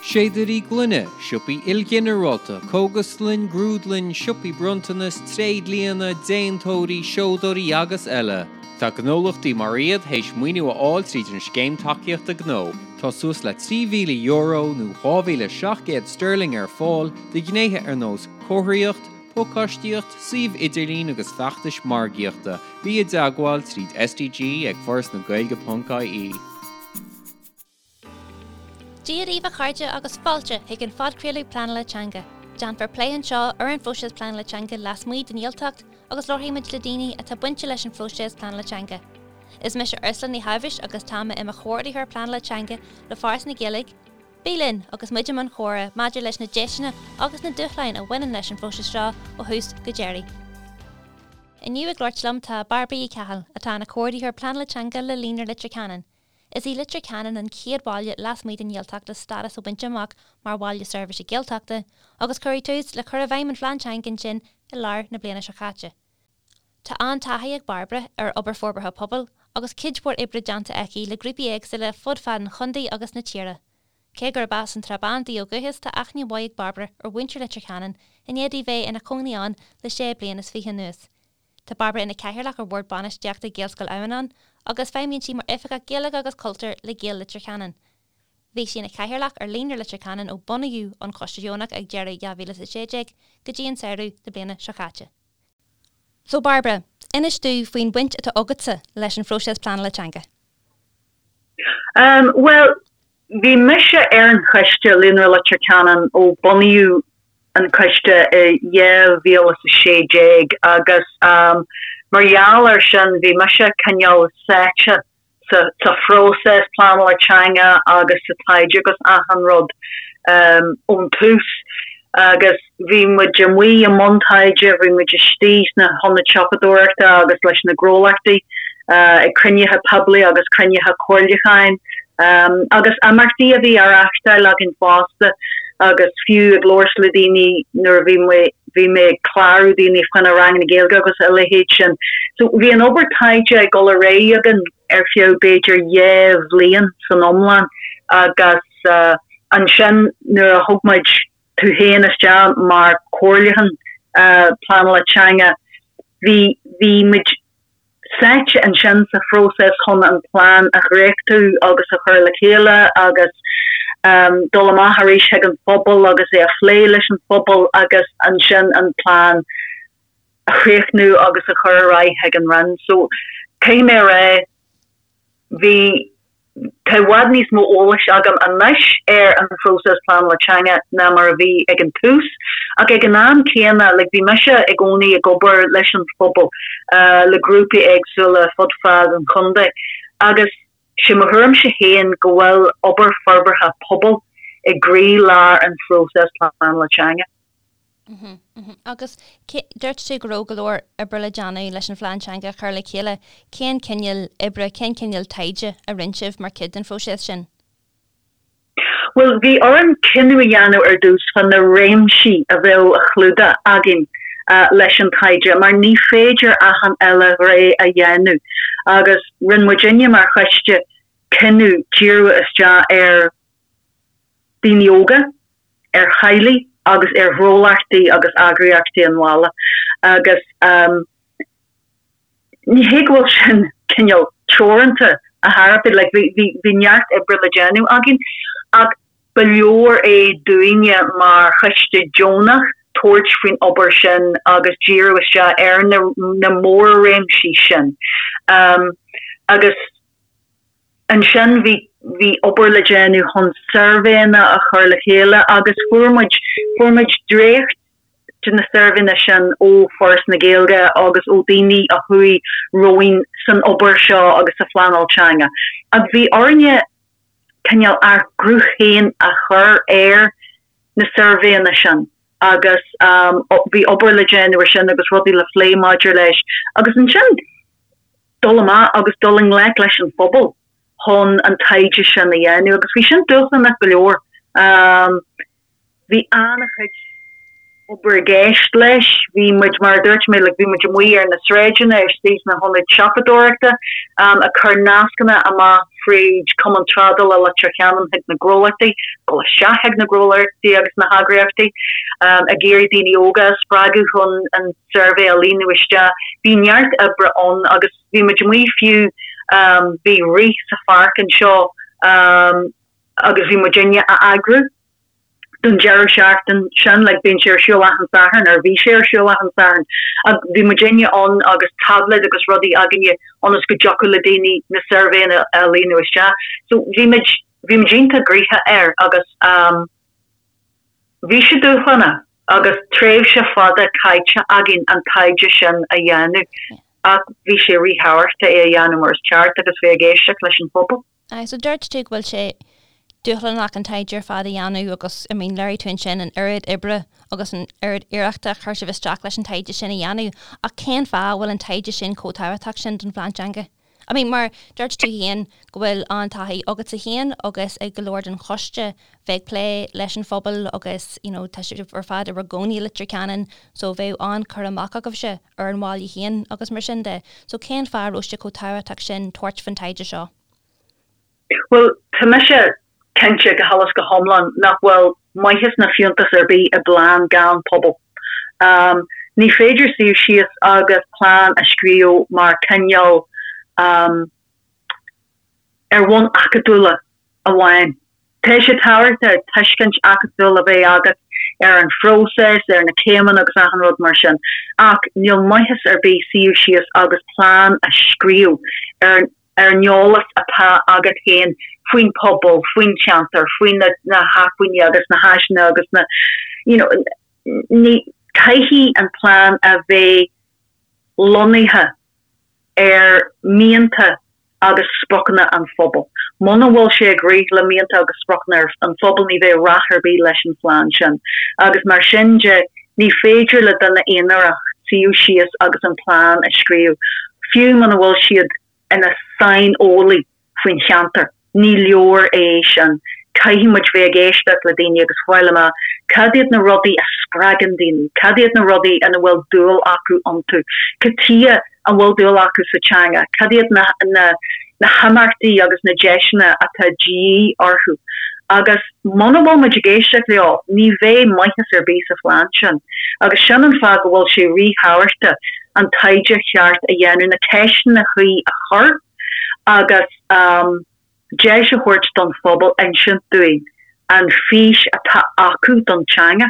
Séadairí gloine, siopaí ilghinearálta, cógaslann, grúdlann, siopaí bronntanas, tréidlianna, déantóirí, seodóirí agus eile. Tá gnólachtaí mar iad théis maoiniú a fháil tríd an Scéim Tacaíochta Gnó. Tá suas le €3,000 nó 2,700 sterling ar fáil do ghnéithe ar nós comharthaíocht, pacáistíocht, suíomh idirlín agus feachtais margaíochta. Bí i dteagmháil tríd SDG ag forasnagaeilge.ie. Dia daoibh a chairde agus fáilte chuig an phodchraoladh Pleanála Teanga. Déanfar plé anseo ar an phróiseas pleanála teanga lasmuigh den Ghaeltacht agus labharfaidh muid le daoine atá bainte leis an phróiseas pleanála teanga. Is mise Ursula Ní Shábhais agus tá mé i mo chomhordaitheoir pleanála teanga le Foras na Gaeilge. Bí linn agus muid i mbun chomhrá maidir leis na deiseanna agus na dúshláin a bhaineann leis an phróiseas seo ó thús go deireadh. Inniu ag labhairt liom tá Bairbre Uí Cheathail, atá ina comhordaitheoir pleanála teanga le Líonra Leitir Ceanainn. Is í Leitir Ceanainn an chéad bhaile lasmuigh den Ghaeltacht le stádas a bhaint amach mar Bhaile Seirbhíse Gaeltachta agus cuireadh tús le cur i bhfeidhm an phlean teanga ansin i lár na bliana seo caite. Tá an-taithí ag Bairbre ar obair forbartha pobail agus cuid mhór oibre déanta aici le grúpaí éagsúla fud fad an chontae agus na tíre. Cé gurb as an tSrath Bán di ó dhúchas tá aithne mhaith ag Bairbre ar mhuintir Leitir Ceanainn i ndiaidh di bheith ina cónaí ann le sé bliana is fiche anuas. Tá Bairbre ina cathaoirleach ar Bhord Bainistíochta Ghaelscoil Adhamhnáin agus feidhmíonn sí mar Oifigeach Gaeilge agus Cultúir le Gaeil Leitir Ceanainn. Bhí sí ina cathaoirleach ar Líonra Leitir Ceanainn ó bunaíodh an coiste deonach ag deireadh 2016 go dtí an samhradh na bliana seo caite. So Bairbre, inis domh faoin bhaint atá agatsa leis an phróiseas pleanála teanga. Bhuel, bhí mise ar an choiste Líonra Leitir Ceanainn ó bunaíodh an coiste i 2016 agus mar gheall air sin bhí mise cineál sáite sa phróiseas pleanála teanga agus sa taighde agus achan rud ón tús agus bhí muid amuigh i mbun taighde, bhí muid istigh sna hionaid siopadóireachta agus leis na gnólachtaí ag cruinnithe poiblí agus cruinnithe comhairliúcháin agus imeachtaí a bhí á reáchtáil againn fosta agus fiú ag labhairt le daoine nuair a bhí mé bhí mé ag clárú daoine fá choinne ranganna Gaeilge agus a leithéid sin. So bhí an obair taighde ag dul ar aghaidh againn ar feadh b'fhéidir dhá bhliain san iomlán agus ansin nuair a thug muid tú féin isteach mar chomhairliúchán pleanála teanga bhí bhí muid sáite ansin sa phróiseas chun an plean a dhréachtú agus a chur le chéile agus dul amach arís chuig an phobal agus é a phlé leis an phobal agus ansin an plean a chríochnú agus a chur ar aghaidh chuig an Roinn. So caithfidh mé a rá, bhí, tá i bhfad níos mó eolais agam anois ar an phróiseas pleanála teanga ná mar a bhí ag an tús ach ag an am céanna, like, bhí mise i gcónaí ag obair leis an phobal, le grúpaí éagsúla fud fad an chontae agus sé mo thuairimse féin go bhfuil obair forbartha pobail i gcroí-lár an phróiseas pleanála teanga. Agus dúirt tú go raibh go leor oibre le déanamh leis an phlean teanga a chur le chéile. Cén cineál oibre, cén cineál taighde a rinne sibh mar chuid den phróiseas sin? Bhuel, bhí orainn cinneadh a dhéanamh ar dtús fá na réimsí a bheadh á chlúdach againn leis an taighde mar ní féidir achan uile ghné a dhéanamh agus rinne muidinne mar choiste cinneadh díriú isteach ar daoine óga, ar theaghlaigh agus ar ghnólachtaí agus eagraíochtaí an bhaile agus ní hé go bhfuil sin cineál teoranta ar chor ar bith, like bhí bhí neart oibre le déanamh againn ach ba leor é dúinne mar choiste deonach tabhairt faoin obair sin agus díriú isteach ar na na mór-réimsí sin agus Ansin bhí bhí obair le déanamh chun suirbhéanna a chur le chéile agus fuair muid fuair muid dréacht de na suirbhéanna sin ó Foras na Gaeilge agus ó daoine a chuaigh romhainn san obair seo agus sa phleanáil teanga. Ach bhí orainne cineál ár gcruth féin a chur ar na suirbhéanna sin agus bhí obair le déanamh ar sin agus rudaí le phlé maidir leis agus ansin dul amach agus dul i ngleic leis an phobal chun an taighde sin a dhéanamh agus bhí sin dúshlánach go leor. Bhí an-chuid obair i gceist leis, bhí muid, mar a dúirt mé, like bhí muid amuigh ar na sráideanna, istigh sna hionaid siopadóireachta, ag cur nascanna amach. fríd Cumann Trádála Leitir Ceanainn chuig na gnólachtaí, dul isteach chuig na gnólachtaí agus na heagraíochtaí, ag iarraidh daoine óga a spreagadh chun an suirbhé a líonadh isteach. Bhí neart oibre ann agus bhí muid amuigh fiú, bhí rith sa pháirc anseo agus bhí muidinne á eagrú. don deireadh seachtain sin, like bíonn sé ar siúl achan Satharn, or bhí sé ar siúl achan Satharn, ach bhí muidinne ann agus tablet agus rudaí againne ionas go dtiocfadh le daoine na suirbhéanna a líonadh isteach. So bhí muid, bhí muid iontach gnoitheach air agus um bhí sé dúshlánach agus tréimhse fada caite againn an taighde sin a dhéanamh ach bhí sé ríthábhachtach é a dhéanamh mar is ceart agus bheith ag éisteacht leis an phobal. Aye, so dúirt tú go bhfuil sé dúshlánach an taighde ar fad a dhéanamh agus, I mean, léirigh tú ansin an oiread oibre agus an oiread iarrachta a chuir sibh isteach leis an taighde sin a dhéanamh, ach cén fáth a bhfuil an taighde sin chomh tábhachtach sin don phlean teanga? I mean, mar dúirt tú féin go bhfuil an-taithí agatsa féin agus ag go leor den choiste bheith ag plé leis an phobal agus, you know, tá sibh ar fad i bhur gcónaí i Leitir Ceanainn so bheadh an-chur amach agaibhse ar an bhaile féin agus mar sin de. So cén fáth a raibh sé chomh tábhachtach sin tabhairt faoin taighde seo? Bhuel, tá mise cinnte go huile is go hiomlán nach bhfuil maitheas ná fiúntas ar bith i bplean gan pobal. Ní féidir suíomh síos agus plean a scríobh mar cineál ar bhonn acadúla amháin. Tá sé tábhachtach tuiscint acadúil a bheith agat ar an phróiseas, ar na céimeanna agus achan rud mar sin, ach níl maitheas ar bith suíomh síos agus plean a scríobh ar ar an eolas atá agat féin faoin pobal, faoin cheantar, faoi na na hacmhainní agus na háiseanna agus na you know ní caithfidh an plean a bheith lonnaithe ar mhianta agus spriocanna an phobail. Muna bhfuil sé ag rith le mianta agus spriocanna an phobail ní bheidh rath ar bith leis an phlean sin. Agus mar sin de, ní féidir le duine aonarach suíomh síos agus an plean a scríobh, fiú muna bhfuil siad ina saineolaí faoin cheantar. Ní leor é sin. Caithfidh muid bheith ag éisteacht le daoine agus fáil amach cad iad na rudaí a spreagann daoine, cad iad na rudaí ina bhfuil dúil acu iontu, cad tuighe an bhfuil dúil acu sa teanga, cad iad na na na himeachtaí agus na deiseanna atá de dhíth orthu. Agus muna bhfuil muid ag éisteacht leo, ní bheidh maitheas ar bith sa phlean sin. Agus sin an fáth go bhfuil sé ríthábhachtach an taighde cheart a dhéanamh, na ceisteanna cuí a chur, agus deis a thabhairt don phobal insint dúinn an fís atá acu don teanga.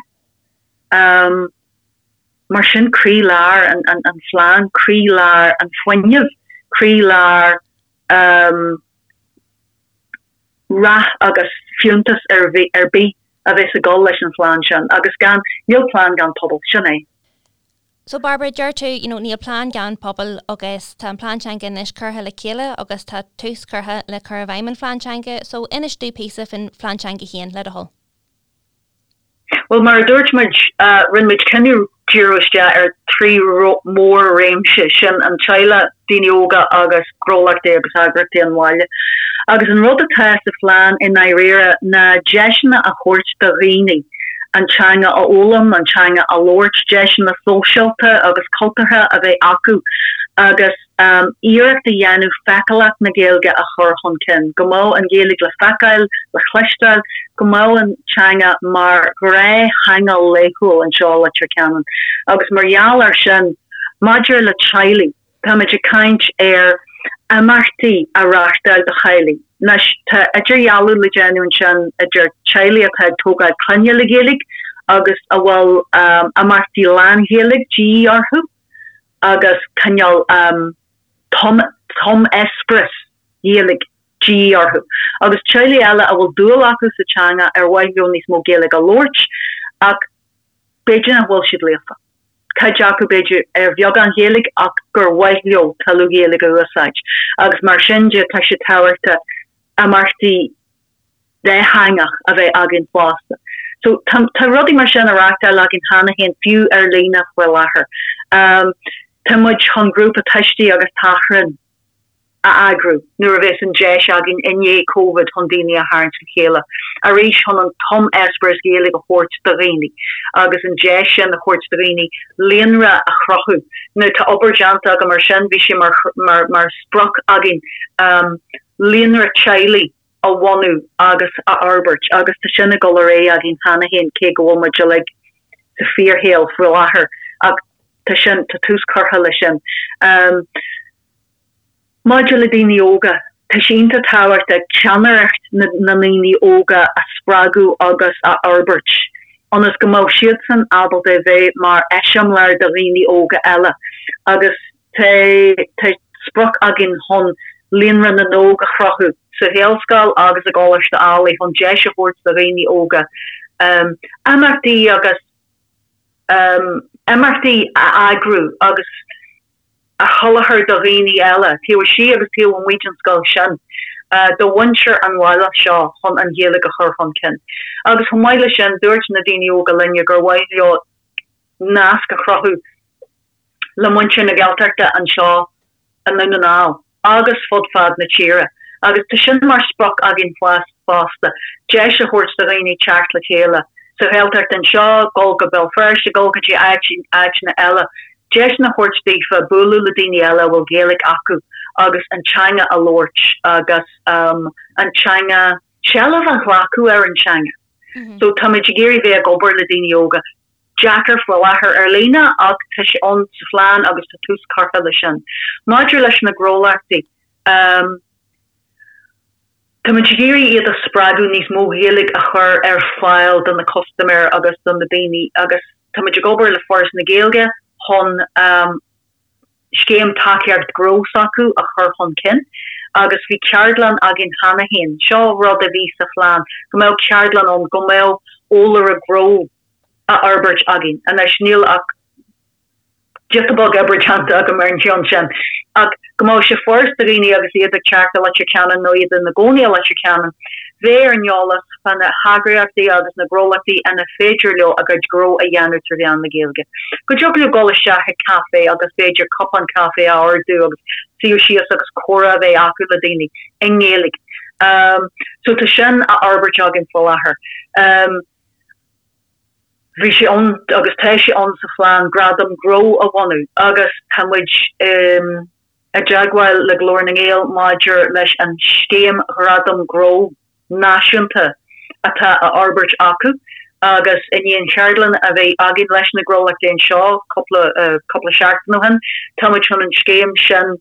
Mar sin croílár an phlean, croílár an fuinnimh, croílár rath agus fiúntas ar bith a bheas ag dul leis an phlean sin agus gan, níl plean gan pobal, sin é. So Barbara, deir tú, you know, níl plean gan pobal agus tá an plean teanga anois curtha le chéile agus tá tús curtha le cur i bhfeidhm an phlean teanga, so inis dúinn píosa faoin phlean teanga féin, le do thoil. Bhuel, mar a dúirt muid, rinne muid cinneadh díriú isteach ar thrí mhór-réimse, sin an teaghlach, daoine óga agus gnólachtaí agus eagraíochtaí an bhaile. Agus an rud atá sa phlean i ndáiríre ná deiseanna a thabhairt do dhaoine an teanga a fhoghlaim, an teanga a labhairt, deiseanna sóisialta agus cultúrtha a bheith acu agus iarracht a dhéanamh feiceálacht na Gaeilge a chur chun cinn, go mbeadh an Ghaeilge le feiceáil, le cloisteáil, go mbeadh an teanga mar ghnáth-theanga laethúil anseo i Leitir Ceanainn. Agus mar gheall air sin, maidir le teaghlaigh, Táimid ag caint ar imeachtaí a reáchtáil do theaghlaigh. Anois, tá idirdhealú le déanamh ansin idir teaghlaigh atá ag tógáil clainne le Gaeilge agus a bhfuil imeachtaí lán-Ghaeilge de dhíth orthu agus cineál tum-eispéireas Gaeilge de dhíth orthu. Agus teaghlaigh eile a bhfuil dúil acu sa teanga ar mhaith leo níos mó Gaeilge a labhairt ach b'fhéidir nach bhfuil siad líofa. Cuid acu b'fhéidir ar bheagán Ghaeilge ach gur mhaith leo tuilleadh Ghaeilge a úsáid agus mar sin de tá sé tábhachtach imeachtaí dátheangach a bheith againn fosta. So tá tá rudaí mar sin á reáchtáil againn cheana féin fiú ar líne faoi láthair. Tá muid chun grúpa tuistí agus tachrán a eagrú nuair a bheas an deis againn i ndiaidh Covid chun daoine a tharraingt le chéile arís chun an tum-eispéireas Gaeilge a thabhairt do dhaoine agus an deis sin a thabhairt do dhaoine líonra a chruthú. Now tá obair déanta agam ar sin, bhí sé mar mar mar sprioc againn. Líonra teaghlaigh a bhunú agus a fhorbairt agus tá sin ag dul ar aghaidh againn cheana féin cé go bhfuil muid uilig sa fíorshaol faoi láthair ach tá sin, tá tús curtha leis sin. Maidir le daoine óga, tá sé iontach tábhachtach ceannaireacht na ndaoine óga a spreagadh agus a fhorbairt ionas go mbeadh siadsan ábalta a bheith mar eiseamláir do dhaoine óga eile agus tá sprioc againn chun Líonra na nÓg a chruthú sa Ghaelscoil agus i gColáiste Ailigh chun deis a thabhairt do dhaoine óga imeachtaí agus imeachtaí a eagrú agus a sholáthar do dhaoine eile, taobh istigh agus taobh amuigh den scoil sin, do mhuintir an bhaile seo chun an Ghaeilge a chur chun cinn. Agus chomh maith leis sin, dúirt na daoine óga linne gur mhaith leo nasc a chruthú le muintir na Gaeltachta anseo i nDún na nGall agus fud fad na tíre agus tá sin mar sprioc againn fosta, deis a thabhairt do dhaoine teacht le chéile sa Ghaeltacht anseo, dul go Béal Feirste, dul go dtí áiteanna eile, deiseanna a thabhairt daofa bualadh le daoine eile a bhfuil Gaeilge acu agus an teanga a labhairt agus an teanga, seilbh a ghlacadh ar an teanga. So táimid ag iarraidh bheith ag obair le daoine óga. Deacair faoi láthair ar líne ach tá sé ann sa phlean agus tá tús curtha leis sin. Maidir leis na gnólachtaí, táimid ag iarraidh iad a spreagadh níos mó Gaeilge a chur ar fáil do na custaiméir agus do na daoine agus táimid ag obair le Foras na Gaeilge chun scéim tacaíocht gnó s'acu a chur chun cinn agus bhí ceardlann againn cheana féin. Seo rud a bhí sa phlean, go mbeadh ceardlann ann, go mbeadh eolaire gnó á fhorbairt againn. Anois níl ach giota beag oibre déanta agam ar an cheann sin, ach go mbeadh sé furast do dhaoine agus iad ag teacht go Leitir Ceanainn nó iad ina gcónaí i Leitir Ceanainn, bheith ar an eolas fá na heagraíochtaí agus na gnólachtaí ina féidir leo a gcuid gnó a dhéanamh trí mheán na Gaeilge. Go dtiocfadh leo dul isteach ag caife agus b'fhéidir cupán caife a ordú agus suí síos agus comhrá a bheith acu le daoine i nGaeilge. So tá sin á fhorbairt againn faoi láthair. Bhí sé ann agus tá sé ann sa phlean gradam gnó a bhunú agus tá muid i dteagmháil le Glór na nGael maidir leis an scéim ghradam gnó náisiúnta atá á fhorbairt acu agus i ndiaidh an cheardlann a bheith againn leis na gnólachtaí anseo cúpla cúpla seachtain ó shin tá muid chun an scéim sin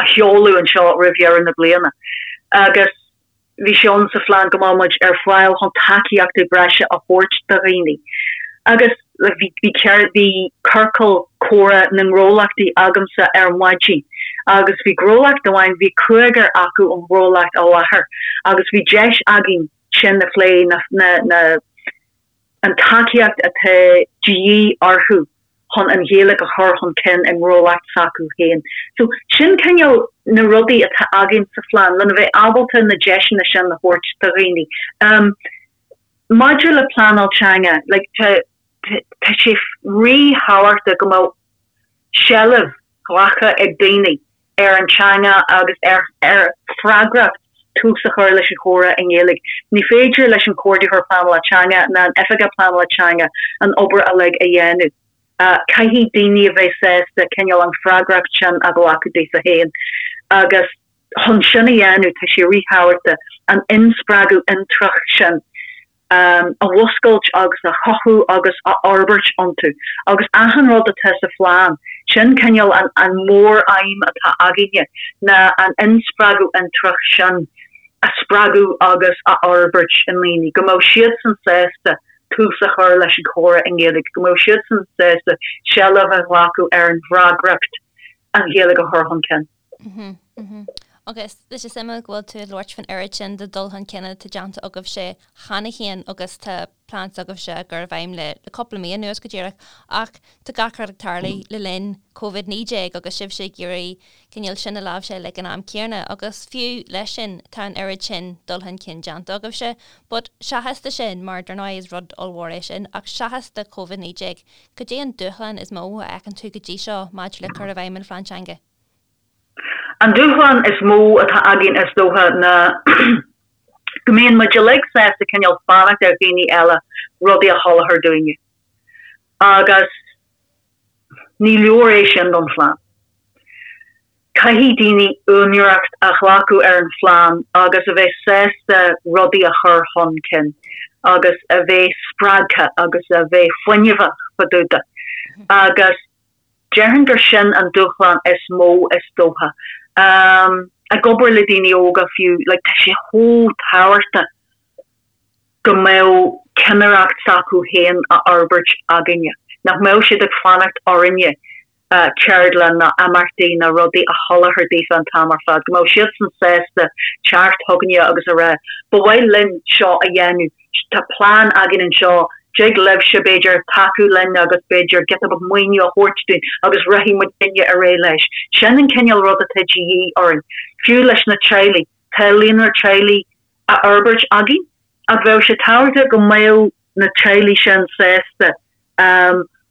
a sheoladh anseo roimh dheireadh na bliana agus Bhí sé ann sa phlean go mbeadh muid ar fáil chun tacaíochtaí breise a thabhairt do dhaoine agus bhí bhí ciorcal comhrá na ngnólachtaí agamsa ar maidin agus bhí gnólacht amháin, bhí cúigear acu ón ngnólacht i láthair agus bhí deis againn sin a phlé, na na an tacaíocht atá de dhíth orthu chun an Ghaeilge a chur chun cinn i ngnólacht s'acu féin. So, sin cineál na rudaí atá againn sa phlean, lena bheith ábalta na deiseanna sin a thabhairt do dhaoine. Um, maidir le pleanáil teanga, like, tá, tá sé ríthábhachtach go mbeadh seilbh glactha ag daoine ar an teanga agus ar ar freagracht tús a chur leis an chomhrá i nGaeilge. Ní féidir leis an Chomhordaitheoir Pleanála Teanga ná an Oifigeach Pleanála Teanga an obair uilig a dhéanamh. Caithfidh daoine a bheith sásta cineál an freagracht sin a ghlacadh daofa féin agus chun sin a dhéanamh tá sé ríthábhachtach an inspreagadh intreach sin a mhúscailt agus a chothú agus a fhorbairt iontu. Agus achan rud atá sa phlean, sin cineál an an mór-aidhm atá againne, ná an inspreagadh intreach sin a spreagadh agus a fhorbairt i ndaoine, go mbeadh siadsan sásta tús a chur leis an chomhrá i nGaeilge, go mbeadh siadsan sásta seilbh a ghlacadh ar an bhfreagracht an Ghaeilge a chur chun cinn. Agus tá sé suimiúil go bhfuil tú ag labhairt faoin oiread sin de dul chun cinn atá déanta agaibhse cheana féin agus tá plean s'agaibhse á chur i bhfeidhm le cúpla mí anuas go díreach ach tá gach rud ag tarlú le linn Covid-19 agus sibhse ag iarraidh cineál sin a láimhseáil ag an am céanna agus fiú leis sin tá an oiread sin dul chun cinn déanta agaibhse. But seachas de sin, mar dar ndóigh is rud ollmhór é sin, ach seachas de Covid-19, cad é an dúshlán is mó a fheiceann tú go dtí seo maidir le cur i bhfeidhm an phlean teanga? An dúshlán is mó atá againn is dócha ná go mbíonn muid uilig sásta cineál fanacht ar dhaoine eile rudaí a sholáthar dúinne. Agus ní leor é sin don phlean. Caithfidh daoine úinéireacht a ghlacadh ar an phlean agus a bheith sásta rudaí a chur chun cinn agus a bheith spreagtha agus a bheith fuinneamhach fá dtaobh de. Agus déarfainn gur sin an dúshlán is mó is dócha. Ag obair le daoine óga fiú, like tá sé chomh tábhachtach go mbeadh cinnireacht s'acu féin á fhorbairt againne, nach mbeadh siad ag fanacht orainne ceardlann ná imeachtaí ná rudaí a sholáthar daofa an t-am ar fad, go mbeadh siadsan sásta teacht chugainne agus a rá, 'Ba mhaith linn seo a dhéanamh, tá plean againn anseo, dtig libhse, b'fhéidir, tacú linn agus b'fhéidir giota beag maoiniú a thabhairt dúinn agus rachaidh muidinne ar aghaidh leis. Sin an cineál rud atá de dhíth orainn. Fiú leis na teaghlaigh, tá líonra teaghlaigh á fhorbairt againn ach bheadh sé tábhachtach go mbeadh na teaghlaigh sin sásta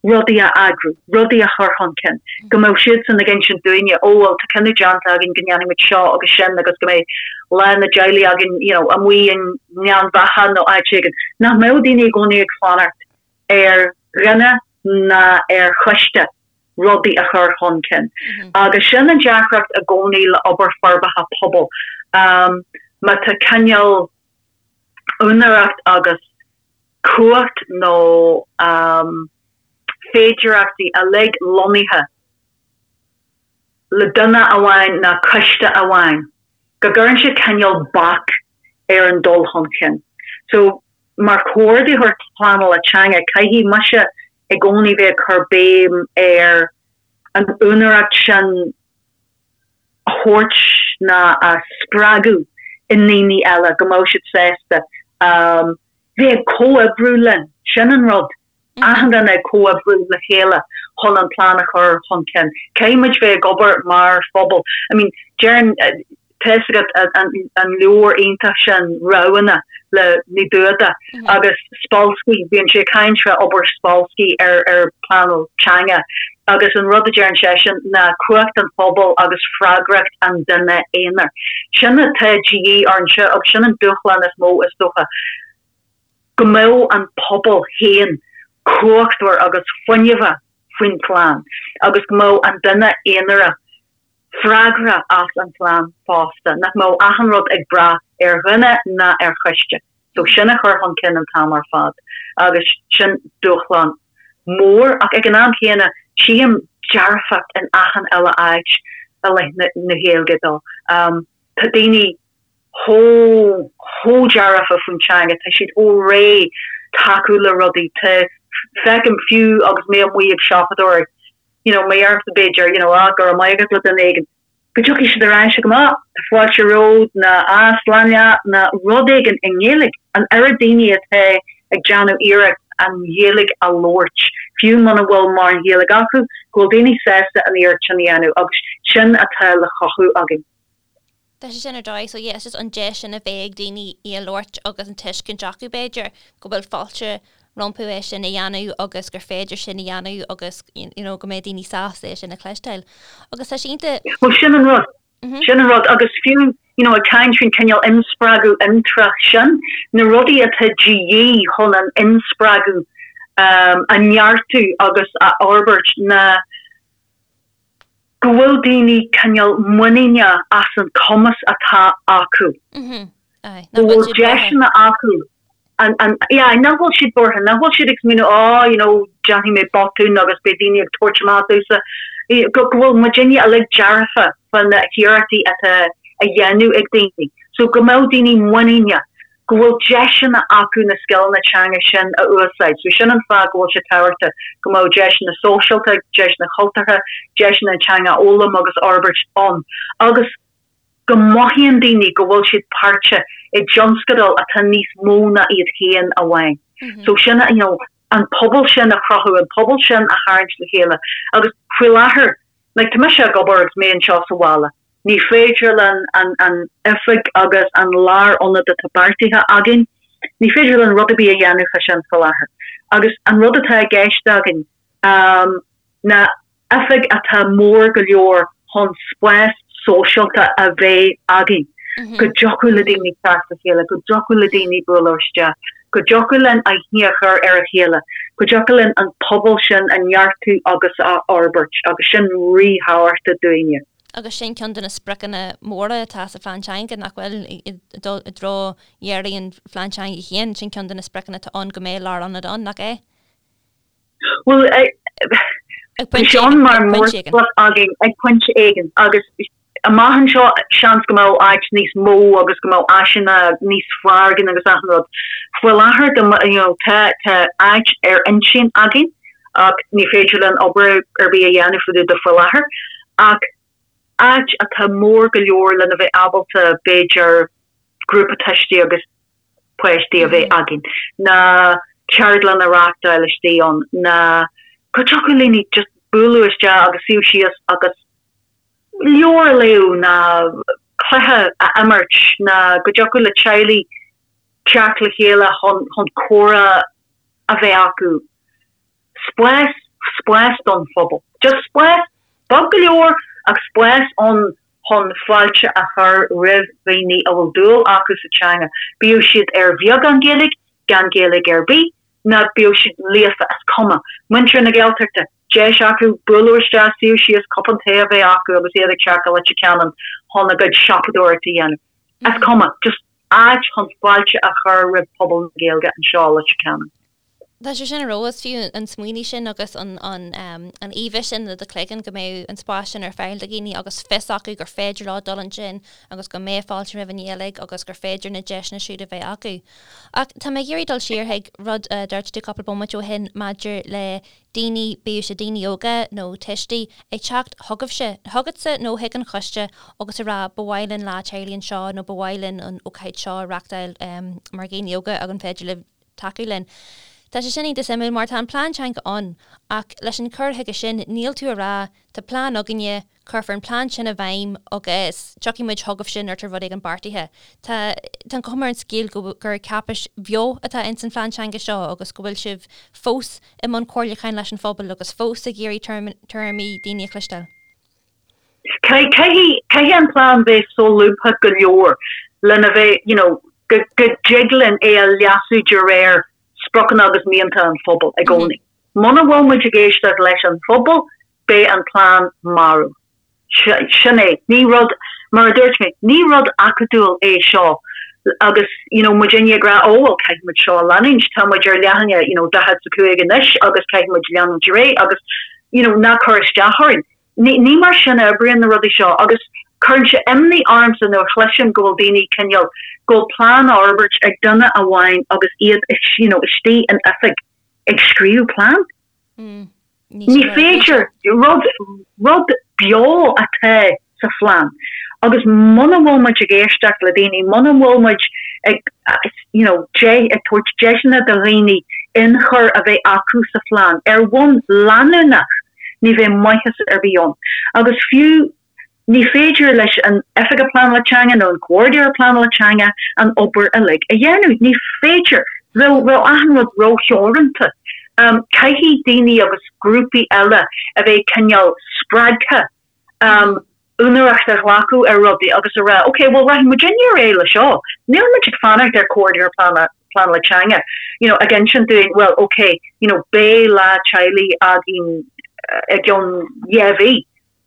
rudaí a eagrú, rudaí a chur chun cinn, go mbeadh siadsan ag insint dúinne, ó bhuel tá cinneadh déanta againn go ndéanfaidh muid seo agus sin agus go mbeidh lá na dteaghlaigh againn you know amuigh i nGleann Bheatha nó áit éigin. Nach mbeadh daoine i gcónaí ag fanacht ar dhuine ná ar choiste rudaí a chur chun cinn. Agus sin an deacracht i gcónaí le obair forbartha pobail. Má tá cineál úinéireacht agus cumhacht nó féidearthachtaí uilig lonnaithe le duine amháin ná coiste amháin, go gcuireann sé cineál bac ar an dul chun cinn. So, mar chomhordaitheoir pleanála teanga, caithfidh mise i gcónaí bheith ag cur béim ar an úinéireacht sin a thabhairt ná a spreagadh i ndaoine eile go mbeadh siad sásta bheith ag comhoibriú linn. Sin an rud. Achan duine ag comhoibriú le chéile chun an plean a chur chun cinn. Caithfidh muid bheith ag obair mar phobal. I mean, deireann, tá fhios agat an leabhar iontach sin, Roghanna, le Ní Dúda agus Spolsky, bíonn sé ag caint fá obair Spolsky ar ar pleanáil teanga agus an rud a deireann seisean ná cumhacht an phobail agus freagracht an duine aonair. Sin atá de dhíth orainne agus sin an dúshlán is mó is dócha, go mbeadh an pobal féin cumhachtmhar agus fuinneamhach faoin phlean agus go mbeadh an duine aonarach freagrach as an phlean fosta, nach mbeadh achan rud ag brath ar dhuine ná ar choiste. So sin a chur chun cinn an t-am ar fad agus sin dúshlán mór ach ag an am chéanna tchím dearfacht in achan uile áit i leith na Gaeilge dó. Tá daoine chomh chomh dearfa faoin teanga, tá siad chomh réidh tacú le rudaí, tá, feicim fiú agus mé amuigh ag siopadóireacht, you know, má dheirimse b'fhéidir, you know, ah, go raibh maith agat le duine éigin, go dtiocfaidh siad ar ais agam, ah, tá fáilte romhat, nó ah, slán leat, nó rud éigin i nGaeilge. An oiread daoine atá ag déanamh iarracht an Ghaeilge a labhairt, fiú muna bhfuil mórán Gaeilge acu, go bhfuil daoine sásta an iarracht sin a dhéanamh agus sin atá le chothú againn. Tá sé sin ar dóigh, so yeah, it's just an deis sin a bheith ag daoine í a labhairt agus an tuiscint acu b'fhéidir go bhfuil fáilte rompu é sin a dhéanamh agus gur féidir sin a dhéanamh agus you know go mbeidh daoine sásta é sin a chloisteáil. Agus tá sé iontach. Bhuel sin an rud, sin an rud agus fiú you know ag caint faoin cineál inspreagadh intreach sin, na rudaí atá de dhíth chun an inspreagadh a neartú agus a fhorbairt ná go bhfuil daoine cineál muiníneach as an cumas atá acu, go bhfuil deiseanna acu, an, yeah, nach bhfuil siad buartha, nach bhfuil siad ag smaoineamh oh, you know, déanfaidh mé botún agus beidh daoine ag tabhairt amach domhsa, go bhfuil muidinne uilig dearfa fá na hiarrachtaí atá á dhéanamh ag daoine. So go mbeadh daoine muiníneach. go bhfuil deiseanna acu na scileanna teanga sin a úsáid. So sin an fáth go bhfuil sé tábhachtach go mbeadh deiseanna sóisialta, deiseanna cultúrtha, deiseanna an teanga a fhoghlaim agus a fhorbairt ann agus go mothaíonn daoine go bhfuil siad páirteach i dtionscadal atá níos mó ná iad féin amháin. So sin, you know, an pobal sin a chruthú, an pobal sin a tharraingt le chéile agus faoi láthair, like, tá mise ag obair agus mé anseo sa bhaile, Ní féidir linn an oifig agus an lárionad atá beartaithe againn, ní féidir linn rud ar bith a dhéanamh fá sin faoi láthair. Agus an rud atá i gceist againn ná oifig atá mór go leor chun spás sóisialta a bheith againn, go dtiocfadh le daoine teacht le chéile, go dtiocfadh le daoine bualadh isteach, go dtiocfadh linn aithne a chur ar a chéile, go dtiocfadh linn an pobal sin a neartú agus a fhorbairt agus sin ríthábhachtach dúinne. Agus sin ceann de na spriocanna móra atá sa phlean teanga, nach bhfuil, i dtreo dheiridh an phlean teanga féin, sin ceann de na spriocanna atá ann go mbeidh lárionad ann, nach é? Bhuel, tá sé ann mar mhórsprioc againn ag pointe éigin agus amach anseo seans go mbeadh áit níos mó agus go mbeadh áiseanna níos fearr againn agus achan rud. Faoi láthair you know tá tá áit ar intinn againn ach ní féidir linn obair ar bith a dhéanamh fá dtaobh de faoi láthair ach áit atá mór go leor lena bheith ábalta b'fhéidir grúpa tuistí agus páistí a bheith againn, ná ceardlann a reáchtáil istigh ann, ná go dtiocfadh le daoine just bualadh isteach agus suí síos agus leabhar a léamh ná cluiche a imirt ná go dtiocfadh le teaghlaigh teacht le chéile chun chun comhrá a bheith acu. Spás, spás don phobal. Just spás, beag go leor ach spás ann chun fáilte a chur roimh dhaoine a bhfuil dúil acu sa teanga, bíodh siad ar bheagán Gaeilge, gan Gaeilge ar bith, ná bíodh siad líofa, is cuma. Muintir na Gaeltachta, deis acu bualadh isteach, suí síos, cupán tae a bheith acu agus iad ag teacht go Leitir Ceanainn chun a gcuid siopadóireachta a dhéanamh. Is cuma. Just áit chun fáilte a chur roimh phobal na Gaeilge anseo i Leitir Ceanainn. Tá sé sin ar fheabhas, fiú an smaoineamh sin agus an an íomha sin i do chloigeann go mbeidh an spás sin ar fáil do dhaoine agus fios acu gur féidir leo dul ansin agus go mbeidh fáilte roimh an Ghaeilge agus gur féidir na deiseanna siúd a bheith acu. Ach tá mé ag iarraidh dul siar chuig rud a dúirt tú cúpla bomaite ó shin maidir le daoine, bíodh sé daoine óga nó tuistí, ag teacht chugaibhse, chugatsa nó chuig an choiste agus a rá ba mhaith linn lá teaghlaigh anseo nó ba mhaith linn an ócáid seo a reachtáil mar dhaoine óga ag an féidir libh tacú linn. Tá sé sin iontach suimiúil mar tá an plean teanga ann ach leis an cur chuige sin níl tú ag rá tá plean againne, cuirfear an plean sin i bhfeidhm agus tiocfaidh muid chugaibhse nuair atá rud éigin beartaithe. Tá tá an chuma ar an scéal go gur cáipéis bheo atá ins an phlean teanga seo agus go bhfuil sibh fós i mbun comhairliúcháin leis an phobal agus fós ag iarraidh tuairimí daoine a chloisteáil. Caithfidh, caithfidh an plean bheith solúbtha go leor lena bheith, you know, go, go dtig linn é a leasú de réir spriocanna agus mianta an phobail i gcónaí. Muna bhfuil muid ag éisteacht leis an phobal, beidh an plean marbh. Sin é. Ní rud, mar a dúirt mé, ní rud acadúil é seo agus, you know, muidinne ag rá, oh well caithfidh muid seo a leanúint, tá muid ar leathanach, you know, 45 anois agus caithfidh muid leanúint ar aghaidh agus, you know, ná cuir isteach orainn. Ní mar sin a oibríonn na rudaí seo agus cuireann sé imní ormsa nuair a chloisim go bhfuil daoine cineál, go bhfuil plean á fhorbairt ag duine amháin agus iad you know istigh in oifig ag scríobh plean. Ní féidir, rud, rud beo atá sa phlean agus muna bhfuil muid ag éisteacht le daoine, muna bhfuil muid ag you know ag tabhairt deiseanna do dhaoine ionchur a bheith acu sa phlean ar bhonn leanúnach, ní bheidh maitheas ar bith ann. Agus fiú ní féidir leis an Oifigeach Pleanála Teanga nó an Comhordaitheoir Pleanála Teanga an obair uilig a dhéanamh. Ní féidir. Bheadh, bheadh achan rud rótheoranta. Caithfidh daoine agus grúpaí eile a bheith cineál spreagtha úinéireacht a ghlacadh ar rudaí agus a rá, ok, bhuel rachaidh muidinne ar aghaidh le seo, níl muid ag fanacht ar Comhordaitheoir Pleanála Teanga, you know, ag insint dúinn, well, ok, you know, beidh lá teaghlaigh againn i gceann dhá mhí.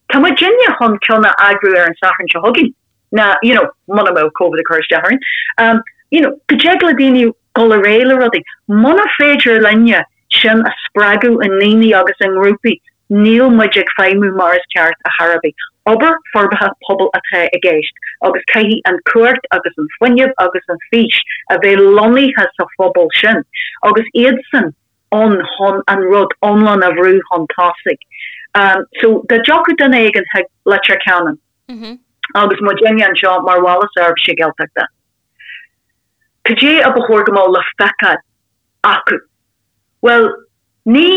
Tá muidinne chun ceann a eagrú ar an Satharn seo chugainn, ná, you know, muna mbeadh Covid ag cur isteach orainn. Um, you know, go dtig le daoine dul ar aghaidh le rudaí. Muna féidir linne sin a spreagadh i ndaoine agus i ngrúpaí, níl muid ag feidhmiú mar is ceart ar chor ar bith. Obair forbartha pobail atá i gceist agus caithfidh an chumhacht agus an fuinneamh agus an fís a bheith lonnaithe sa phobal sin agus iadsan ann chun an rud iomlán a bhrú chun tosaigh. So dá dtiocfadh duine éigin chuig Leitir Ceanainn agus muidinne anseo mar Bhaile Seirbhíse Gaeltachta, cad é a ba chóir go mbeadh le feiceáil acu? Bhuel, ní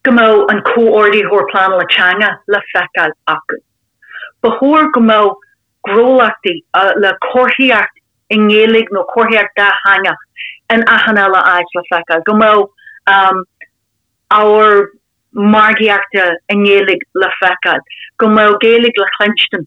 go mbeadh an Comhordaitheoir Pleanála Teanga le feiceáil acu. Ba chóir go mbeadh gnólachtaí le comharthaíocht i nGaeilge nó comharthaíocht dátheangach in achan uile áit le feiceáil, go mbeadh ábhar margaíochta i nGaeilge le feiceáil, go mbeadh Gaeilge le cluinstin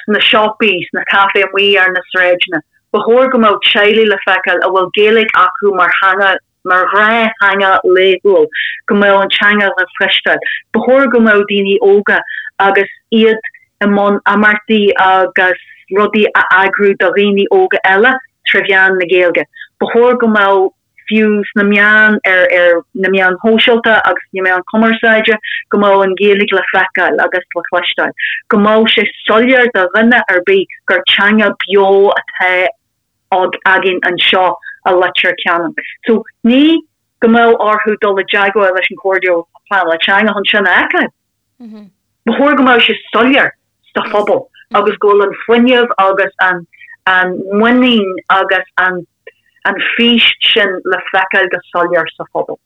sna siopaí, sna caifé amuigh ar na sráideanna. Ba chóir go mbeadh teaghlaigh le feiceáil a bhfuil Gaeilge acu mar theanga mar ghnáth-theanga laethúil, go mbeadh an teanga le cloisteáil. Ba chóir go mbeadh daoine óga agus iad. i mbun imeachtaí agus rudaí a eagrú do dhaoine óga eile tré mheán na Gaeilge. Ba chóir go mbeadh fiú sna meáin, ar ar na meáin shóisialta agus na meáin chumarsáide, go mbeadh an Ghaeilge le feiceáil agus le cloisteáil. Go mbeadh sé soiléir do dhuine ar bith gur teanga beo atá againn anseo i Leitir Ceanainn. So ní go mbeadh orthu dul i dteagmháil leis an Chomhairle Pleanála Teanga chun sin a fheiceáil. Ba chóir go mbeadh sé soiléir sa phobal agus go bhfuil an fuinneamh agus an an muinín agus an an fís sin le feiceáil go soiléir sa phobal.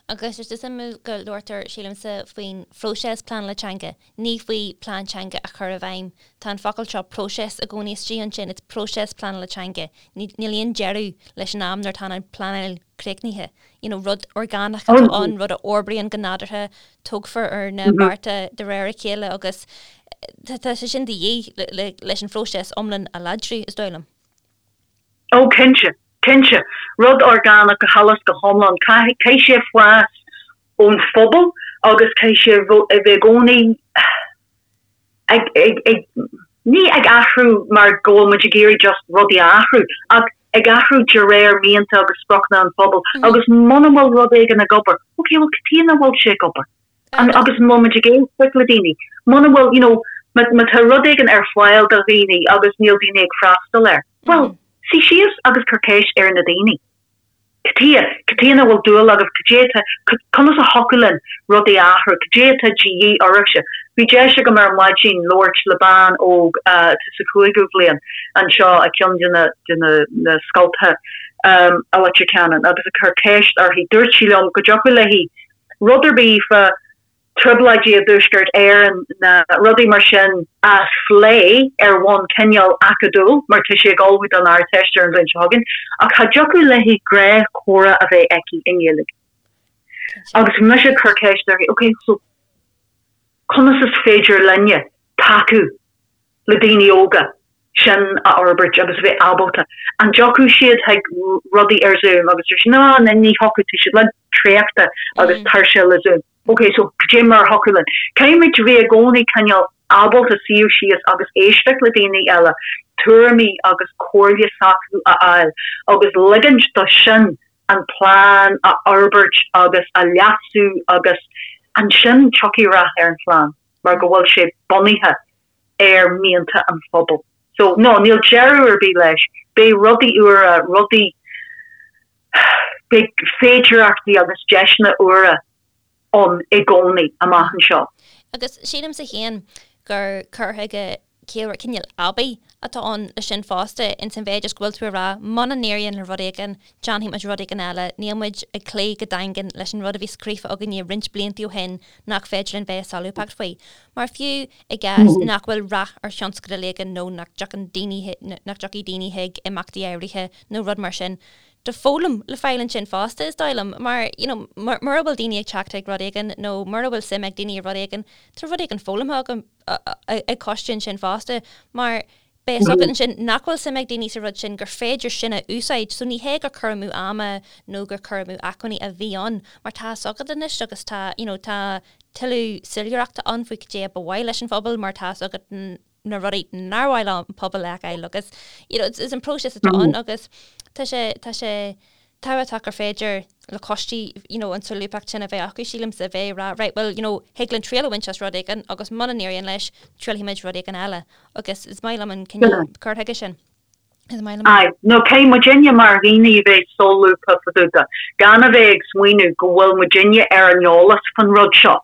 Agus is suimiúil go labhartar, sílimse, faoin phróiseas pleanála teanga, ní faoi plean teanga a chur i bhfeidhm. Tá an focal seo próiseas i gcónaí istigh ansin, it's próiseas pleanála teanga. Níl aon deireadh leis an am nuair atá an pleanáil críochnaithe. You know, rud orgánach atá ann, rud a fhorbraíonn go nádúrtha, tógfar ar na bearta de réir a chéile agus tá sé sin de dhíth leis an phróiseas iomlán a láidriú, is dóigh liom. Ó, cinnte, cinnte. Rud orgánach go huile is go hiomlán. Caithfidh sé fás ón phobal agus caithfidh sé a bheith i gcónaí ag, ag, ag, ní ag athrú mar go bhfuil muid ag iarraidh just rudaí a athrú, ach ag athrú de réir mianta agus spriocanna an phobail agus muna bhfuil rud éigin ag obair, ok, bhuel cad chuige nach bhfuil sé ag obair? An, agus an bhfuil muid ag éisteacht le daoine? Muna bhfuil, you know, má, má tá rud éigin ar fáil do dhaoine agus níl daoine ag freastal air, bhuel, suigh síos agus cuir ceist ar na daoine. Cad chuige? Cad chuige nach bhfuil dúil agaibh? Cad é atá, conas a thiocfadh linn rudaí a athrú? Cad é atá de dhíth oraibhse? Bhí deis agam ar maidin labhairt le bean óg atá sa chúigiú bhliain anseo i gceann de na, de na, na scoltacha i Leitir Ceanainn agus ag cur ceist uirthi. Dúirt sí liom go dtiocfadh léi rud ar bith fá trioblóidí i dTuaisceart Éireann ná rudaí mar sin a phlé ar bhonn cineál acadúil, mar tá sí ag ullmhú don Ardteist ar an bhliain seo chugainn, ach cha dtiocfadh léi gnáthchomhrá a bheith aici i nGaeilge. Agus bhí mise ag cur ceist uirthi, ok, so conas is féidir linne tacú le daoine óga sin a fhorbairt agus a bheith ábalta. An dtiocfadh siad chuig rudaí ar Zoom agus dúirt sí no, ní thiocfadh, tá siad uilig traochta agus tuirseach le Zoom. Ok, so cad é mar a thiocfadh linn? Caithfimid a bheith i gcónaí cineál ábalta suíomh síos agus éisteacht le daoine eile, tuairimí agus comhairle s'acu a fháil agus ligint do sin an plean a fhorbairt agus a leasú agus ansin tiocfaidh rath ar an phlean mar go bhfuil sé bunaithe ar mhianta an phobail. So, no, níl deireadh ar bith leis. Beidh rudaí úra, rudaí, beidh féidearthachtaí agus deiseanna úra ann i gcónaí amach anseo. Agus sílimse féin gur cur chuige ciallmhar, cineál aibí atá ann leis sin fosta, ins an mhéid is go bhfuil tú ag rá, muna n-éiríonn le rud éigin, déanfaidh muid rud éigin eile, níl muid ag cloí go daingean leis an rud a bhí scríofa againne roinnt blianta ó shin nach féidir linn bheith solúbtha faoi. Mar fiú i gcás nach bhfuil rath ar thionscadal éigin nó nach dtiocfaidh daoine, nach dtiocfaidh daoine chuig imeachtaí áirithe nó rud mar sin, tá foghlaim le fáil ansin fosta, is dóigh liom, mar, you know, mura bhfuil daoine ag teacht chuig rud éigin nó mura bhfuil suim ag daoine i rud éigin, tá rud éigin foghlamtha agam ag coiste ansin fosta, mar beidh a fhios agat ansin nach bhfuil suim ag daoine sa rud sin, gur féidir sin a úsáid. So ní hé gur cur amú ama nó gur cur amú acmhainní a bhí ann, mar tá a fhios agat anois agus tá, you know, tá tuilleadh soiléireachta ann faoi cad é a ba mhaith leis an phobal mar tá a fhios agat na rudaí nár mhaith le an pobal a fheiceáil agus, you know, is an próiseas atá ann agus tá sé, tá sé tábhachtach gur féidir le coistí, you know, an tsolúbthacht sin a bheith acu, sílimse, a bheith ag rá, right, well, you know, thig linn triail a bhaint as rud éigin agus muna n-éiríonn leis, triailfimid rud éigin eile. Agus is maith liom an cineál cur chuige sin. Is maith liom. Aye, nó caithfidh muidinne mar dhaoine a bheith solúbtha fá dtaobh de, gan a bheith ag smaoineamh go bhfuil muidinne ar an eolas fan rud seo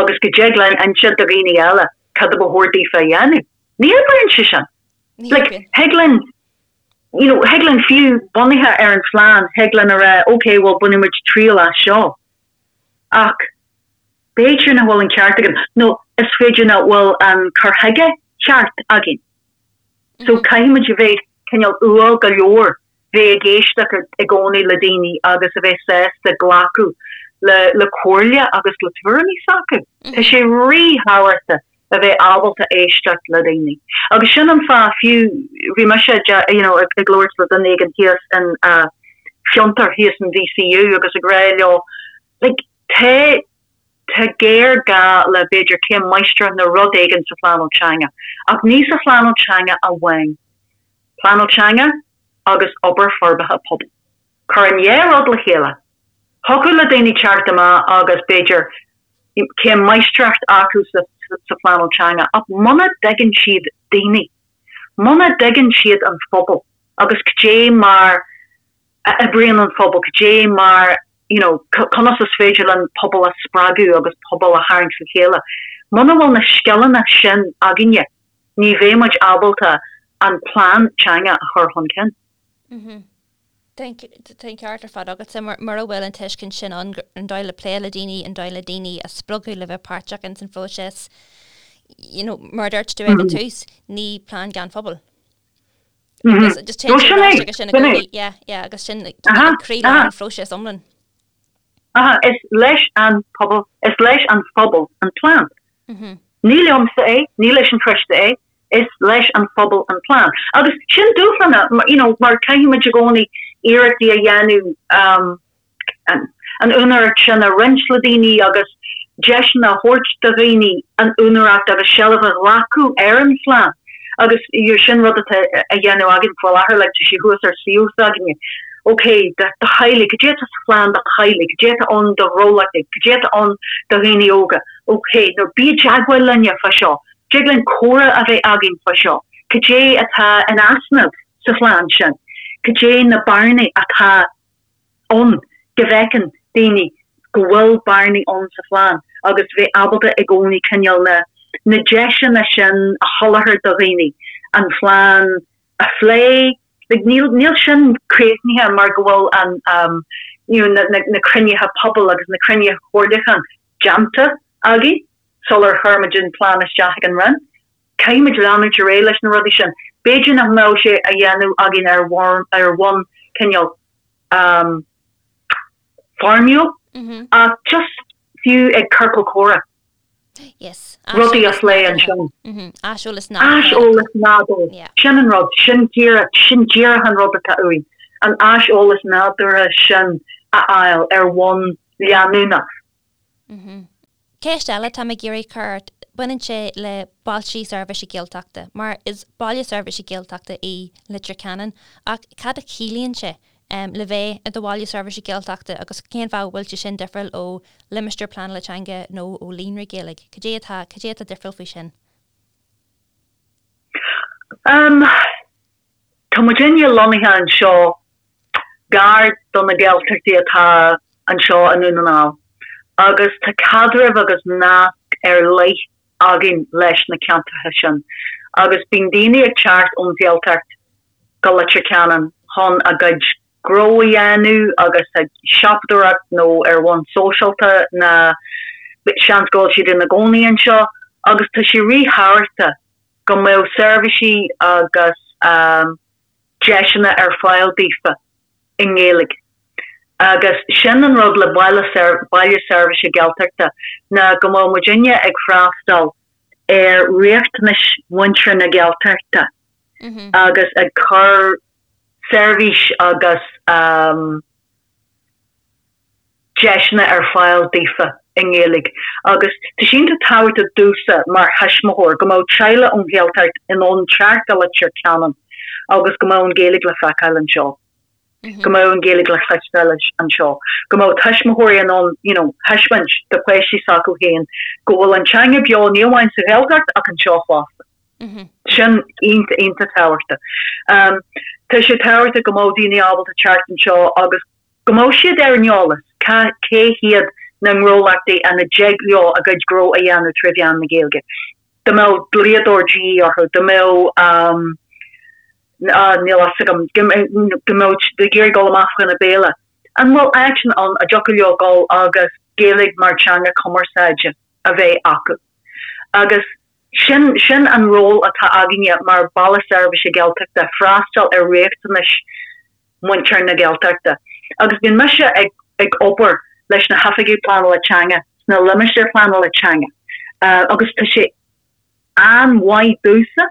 agus go dtig linn inse do dhaoine eile cad a ba chóir daofa a dhéanamh. Ní oibríonn sé sin. Like, thig linn you know, thig linn fiú bunaithe ar an phlean, thig linn a rá, ok, bhuel, bainfidh muid triail as seo. Ach b'fhéidir nach bhfuil an ceart againn, nó is féidir nach bhfuil an cur chuige ceart againn. So caithfidh muid a bheith cineál umhal go leor, bheith ag éisteacht i gcónaí le daoine agus a bheith sásta glacadh le le comhairle agus le tuairimí s'acu. Tá sé ríthábhachtach a bheith ábalta éisteacht le daoine. Agus sin an fáth fiú, bhí mise you know ag labhairt le duine éigin thíos in Fiontar, thíos in DCU agus ag rá leo like tá. Tá géarghá le b'fhéidir céim máistreachta nó rud éigin sa phleanáil teanga, ach ní sa phleanáil teanga amháin. Pleanáil teanga agus obair forbartha pobail. Cuir an dhá rud le chéile. Thiocfadh le daoine teacht amach agus b'fhéidir céim máistreacht acu sa phleanáil teanga ach muna dtuigeann siad daoine, muna dtuigeann siad an phobal agus cad é mar a oibríonn an phobal, cad é mar, you know, conas is féidir linn pobal a spreagadh agus pobal a tharraingt le chéile. Muna bhfuil na scileanna sin againne, ní bheidh muid ábalta an plean teanga a chur chun cinn. Tá an ceart ar fad agatsa, mura bhfuil an tuiscint sin ann, an dóigh le plé le daoine, an dóigh le daoine a spreagadh le bheith páirteach ins an phróiseas, you know, mar a dúirt tú ag an tús, ní plean gan phobal. Agus just téann sé ar ais agus sin i gcónaí, yeah, yeah, agus sin croílár an phróiseas iomlán. Aha, is leis an pobal, is leis an phobal an plean. Ní liomsa é, ní leis an choiste é, is leis an phobal an plean. Agus sin dúshlán, you know, mar caithfidh muid i gcónaí iarrachtaí a dhéanamh an úinéireacht sin a roinnt le daoine agus deiseanna a thabhairt do dhaoine an úinéireacht agus seilbh a ghlacadh ar an phlean. Agus sin rud atá á dhéanamh againn faoi láthair, like tá sé thuas ar suíomh s'againne. Ok, do theaghlaigh, cad é atá sa phlean do theaghlaigh, cad é atá ann do ghnólachtaí, cad é atá ann do dhaoine óga, ok, nó bí i dteagmháil linne fá seo, Dtig linn comhrá a bheith againn fá seo, cad é atá in easnamh sa phlean sin, cad é na bearnaí atá ann, go bhfeiceann daoine go bhfuil bearnaí ann sa phlean agus bheith ábalta i gcónaí cineál na na deiseanna sin a sholáthar do dhaoine, an phlean a phlé, like níl níl sin críochnaithe mar go bhfuil an um you know na na na cruinnithe pobail agus na cruinnithe comhairliúcháin déanta againn. sular chuir muid an plean isteach ag an Roinn. Caithfidh muid leanúint ar aghaidh leis na rudaí sin. B'fhéidir nach mbeadh sé á dhéanamh againn ar ar bhonn cineál foirmiúil ach just fiú ag ciorcal comhrá. Yes. Rudaí a phlé ansin. Aiseolas nádúrtha. Aiseolas nádúrtha. Sin an rud, sin díreach, sin díreach an rud atá uainn, an aiseolas nádúrtha sin a fháil ar bhonn leanúnach. Ceist eile atá mé ag iarraidh cur ort, baineann sé le bailte seirbhíse Gaeltachta, mar is baile seirbhíse Gaeltachta í Leitir Ceanainn, ach cad a chiallaíonn sé le bheith i do bhaile seirbhíse Gaeltachta agus cén fáth a bhfuil sé sin difriúil ó limistéar pleanála teanga nó ó líonra Gaeilge? Cad é atá, cad é atá difriúil faoi sin? Tá muidinne lonnaithe anseo gar do na Gaeltachtaí atá anseo i nDún na nGall agus tá caidreamh agus nasc ar leith againn leis na ceantracha sin agus bíonn daoine ag teacht ón Ghaeltacht go Leitir Ceanainn chun a gcuid gnó a dhéanamh agus ag siopadóireacht nó ar bhonn sóisialta ná seans go bhfuil siad ina gcónaí anseo agus tá sé ríthábhachtach go mbeadh seirbhísí agus deiseanna ar fáil daofa i nGaeilge. Agus sin an rud le baile baile seirbhíse Gaeltachta ná go mbeadh muidinne ag freastal ar riachtanais mhuintir na Gaeltachta agus ag cur seirbhís agus deiseanna ar fáil daofa i nGaeilge agus tá sé iontach tábhachtach domhsa mar thuismitheoir go mbeadh teaghlach ón Ghaeltacht in ann teacht go Leitir Ceanainn agus go mbeadh an Ghaeilge le feiceáil anseo, go mbeadh an Ghaeilge le cloisteáil anseo, go mbeadh tuismitheoirí in ann you know thaispeáint do pháistí s'acu féin go bhfuil an teanga beo ní amháin sa Ghaeltacht ach anseo fosta. Sin iontach iontach tábhachtach. Tá sé tábhachtach go mbeadh daoine ábalta teacht anseo agus go mbeadh siad ar an eolas cé hiad na ngnólachtaí ina dtig leo a gcuid gnó a dhéanamh tré mheán na Gaeilge. Dá mbeadh dlíodóir de dhíth orthu, dá mbeadh, níl a fhios agam, go mbeadh siad ag iarraidh dul amach fá choinne béile, an bhfuil áiteanna ann a dtiocfadh leo dul agus Gaeilge mar teanga cumarsáide a bheith acu? Agus sin, sin an ról atá againne mar Baile Seirbhíse Gaeltachta, freastal ar riachtanais muintir na Gaeltachta. Agus bíonn mise ag ag obair leis na hoifigigh pleanála teanga sna limistéir pleanála teanga agus tá sé an-mhaith domhsa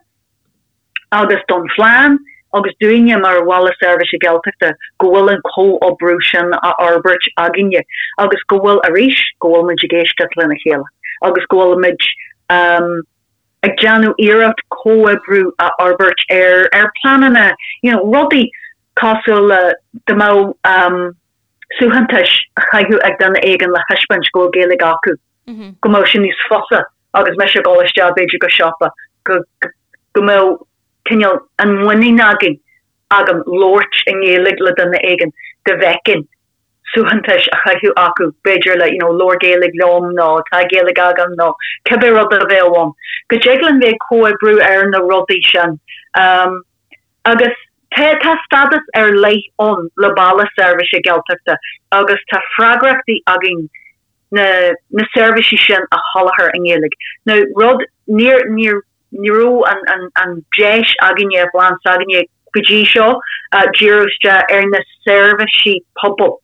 agus don phlean. agus dúinne mar Bhaile Seirbhíse Gaeltachta go bhfuil an comhoibriú sin á fhorbairt againne agus go bhfuil, arís, go bhfuil muid ag éisteacht lena chéile agus go bhfuil muid ag déanamh iarracht comhoibriú a fhorbairt ar ar pleananna, you know, rudaí cosúil le dá mbeadh suaitheantais á chaitheamh ag duine éigin le thaispeáint go bhfuil Gaeilge acu, go mbeadh sé níos fusa agus mise ag dul isteach b'fhéidir go siopa go go mbeadh cineál an mhuinín againn, agam labhairt i nGaeilge le duine éigin dá bhfeicfinn suaitheantais á chaitheamh acu, b'fhéidir le you know labhair Gaeilge liom nó tá Gaeilge agam nó cibé rud a bheadh ann. Go dtig linn bheith ag comhoibriú ar na rudaí sin. Agus tá tá stádas ar leith ann le Baile Seirbhíse Gaeltachta agus tá freagrachtaí againn na na seirbhísí sin a sholáthar i nGaeilge. Now rud níor níor Ní raibh an deis againne, i bplean s'againne go dtí seo, díriú isteach ar na seirbhísí pobail.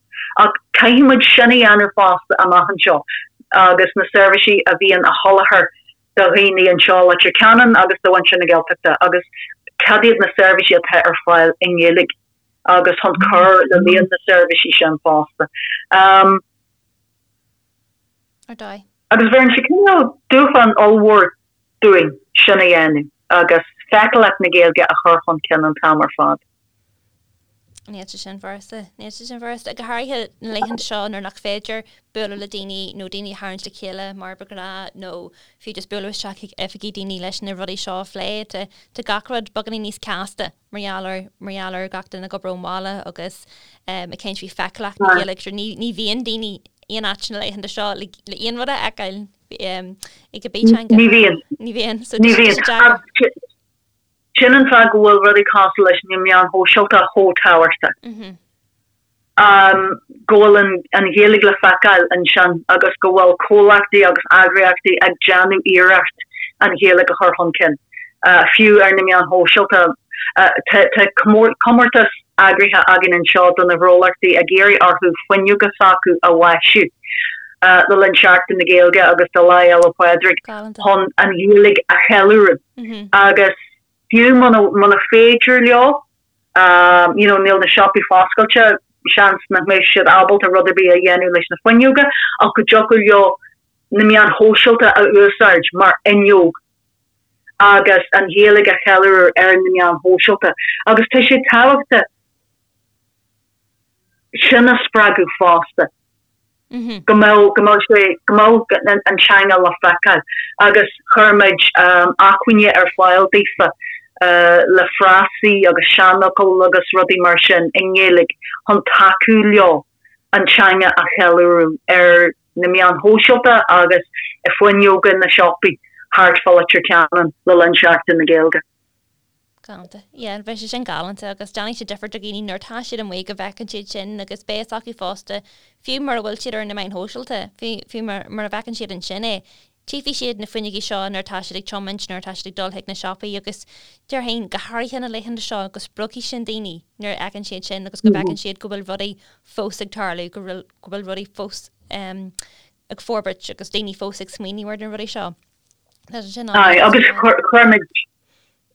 Ach caithfidh muid sin a dhéanamh fosta amach anseo agus na seirbhísí a bhíonn á sholáthar do dhaoine anseo i Leitir Ceanainn agus do mhuintir na Gaeltachta agus cad iad na seirbhísí atá ar fáil i nGaeilge agus chun cur le líon na seirbhísí sin fosta. Ar dóigh. Agus bheireann sé cineál dúshlán ollmhór dúinn sin a dhéanamh agus feiceálacht na Gaeilge a chur chun cinn an t-am ar fad. Níl sé sin furasta. Níl sé sin furasta. Go háirithe na laethanta seo nuair nach féidir bualadh le daoine nó daoine a tharraingt le chéile mar ba ghnáth nó fiú just bualadh isteach chuig oifigí daoine leis na rudaí seo a phlé. Tá tá gach rud beagáinín níos casta mar gheall ar mar gheall ar gach duine ag obair ón bhaile agus ag caint faoi feiceálacht na Gaeilge. Sure ní ní bhíonn daoine aon áit na laethanta seo le le aon rud a fheiceáil. ag a bteanga. Ní bhíonn. Ní bhíonn. So Ní bhíonn. Sin an fáth go bhfuil rudaí cosúil leis na meáin shóisialta chomh tábhachtach. Go bhfuil an Ghaeilge le feiceáil ansin agus go bhfuil comhlachtaí agus eagraíochtaí ag déanamh iarracht an Ghaeilge a chur chun cinn, fiú ar na meáin shóisialta. Tá comórtas eagraithe againn anseo do na gnólachtaí ag iarraidh orthu fuinneoga s'acu a mhaisiú. le linn Seachtain na Gaeilge agus do Lá Fhéile Pádraig chun an Ghaeilge a cheiliúradh agus fiú muna féidir leo you know níl na siopaí foscailte, seans nach mbeidh siad ábalta rud ar bith a dhéanamh leis na fuinneoga ach go dtiocfadh leo na meáin shóisialta a úsáid mar fhuinneog agus an Ghaeilge a cheiliúradh ar na meáin shóisialta agus tá sé tábhachtach sin a spreagadh fosta. Go mbeadh, go mbeadh sé, go mbeadh an teanga le feiceáil agus chuir muid acmhainní ar fáil daofa le frásaí agus seanfhocail agus rudaí mar sin i nGaeilge chun tacú leo an teanga a cheiliúradh ar na meáin shóisialta agus i fuinneoga na siopaí thart fá Leitir Ceanainn le linn Seachtain na Gaeilge. Galánta. Yeah, bheadh sé sin galánta agus déanfaidh sé difear do dhaoine nuair atá siad amuigh go bhfeiceann siad sin agus beidh fhios acu fosta, fiú mura bhfuil siad ar na meáin shóisialta, fiú, fiú mura bhfeiceann siad ansin é, tchífidh siad na fuinneogaí seo nuair atá siad ag tiomáint, nuair atá siad ag dul chuig na siopaí agus déarfainn, go háirithe na laethanta seo, go spreagfaidh sin daoine nuair a fheiceann siad sin agus go bhfeiceann siad go bhfuil rudaí fós ag tarlú, go bhfuil, go bhfuil rudaí fós ag forbairt agus daoine fós ag smaoineamh ar na rudaí seo. Tá sé sin Aye, agus chuir muid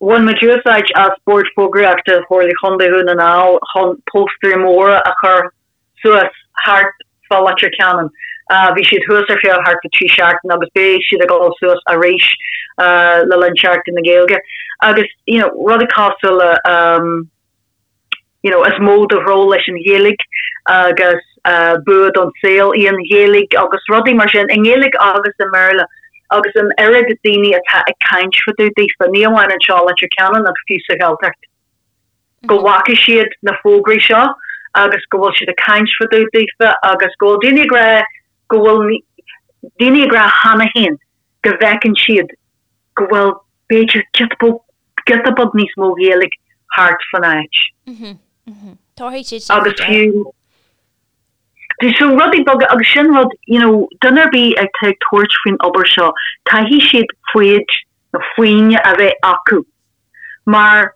Bhain muid úsáid as Bord Fógraíochta Chomhairle Chontae Dhún na nGall chun póstaerí móra a chur suas thart fá Leitir Ceanainn. Bhí siad thuas ar feadh thart fá 3 seachtain agus beidh siad ag dul suas arís le linn Seachtain na Gaeilge. Agus you know rudaí cosúil le you know, is mó do ghnó leis an Ghaeilge agus bua don saol í an Ghaeilge agus rudaí mar sin, i nGaeilge agus i mBéarla agus an oiread daoine atá ag caint fá dtaobh daofa, ní amháin anseo i Leitir Ceanainn ach fiú sa Ghaeltacht, go bhfaca siad na fógraí seo agus go bhfuil siad ag caint fá dtaobh daofa agus go bhfuil daoine ag rá go bhfuil daoine ag rá cheana féin go bhfeiceann siad go bhfuil b'fhéidir giota beag giota beag níos mó Ghaeilge thart fan áit. Tabharfaidh siad sin Agus fiú so rudaí beaga agus sin rud you know duine ar bith atá ag tabhairt faoin obair seo caithfidh siad foighid nó foighne a bheith acu mar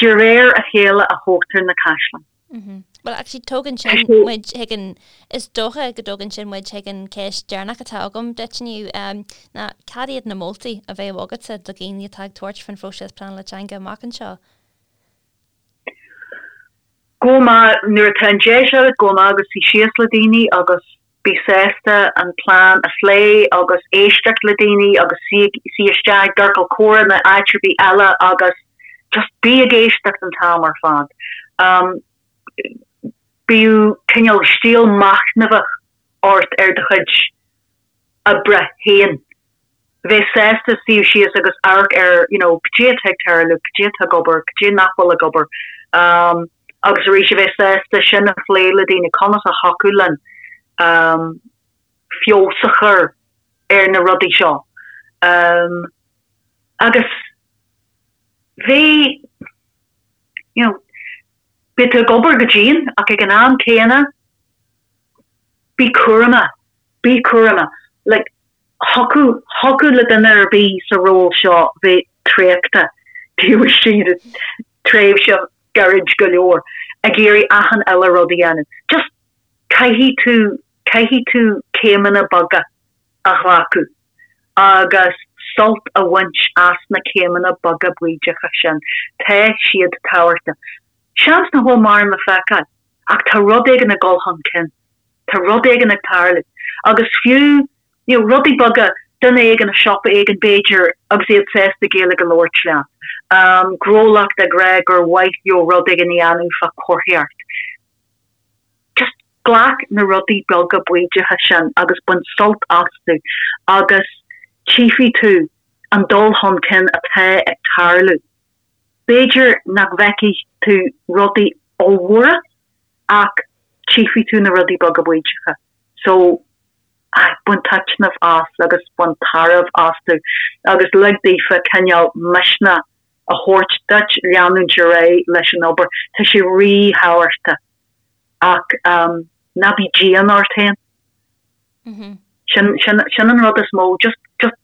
De réir a chéile a thógtar na caisleáin. Bhuel, actually, tógann sin muid chuig an, is dócha go dtógann sin muid chuig an ceist deireanach atá agam duit inniu, ná cad iad na moltaí a bheadh agatsa do dhaoine atá ag tabhairt faoin phróiseas pleanála teanga amach anseo? Gabh amach, nuair atá an deis agat, gabh amach agus suigh síos le daoine agus bí sásta an plean a phlé agus éisteacht le daoine agus suigh isteach i gciorcal comhrá nó áit ar bith eile agus just bí ag éisteacht an t-am ar fad. Bíodh cineál stíl machnamhach ort ar do chuid oibre féin. Bheith sásta suí síos agus amharc ar you know cad é atá ag tarlú, cad é atá ag obair, cad é nach bhfuil ag obair. Agus arís a bheith sásta sin a phlé le daoine, conas a thiocfadh linn feabhas a chur ar na rudaí seo. Agus bheith you know beidh tú ag obair go dian ach ag an am céanna bí cúramach, bí cúramach. Like thiocfadh, thiocfadh le duine ar bith sa ról seo bheith traochta taobh istigh de tréimhse gairid go leor ag iarraidh achan uile rud a dhéanamh. Just caithfidh tú, caithfidh tú céimeanna beaga a ghlacadh agus sult a bhaint as na céimeanna beaga baoideacha sin. Tá siad tábhachtach. Seans nach bhfuil mórán le feiceáil ach tá rud éigin ag dul chun cinn. Tá rud éigin ag tarlú. Agus fiú, you know, rudaí beaga, duine éigin i siopa éigin b'fhéidir agus iad sásta Gaeilge a labhairt leat, gnólacht ag rá gur mhaith leo rud éigin a dhéanamh fá chomharthaíocht. Just glac na rudaí beaga baoideacha sin agus bain sult astu agus tchífidh tú an dul chun cinn atá ag tarlú. B'fhéidir nach bhfeicfidh tú rudaí ollmhóra ach tchífidh tú na rudaí beaga baoideacha. So, aye, bain taitneamh as agus bain tairbhe astu agus lig daofa cineál misneach a thabhairt duit leanúint ar aghaidh leis an obair. Tá sé rí-thábhachtach ach ná bí dian ort féin. Sin, sin, sin an rud is mó. Just, just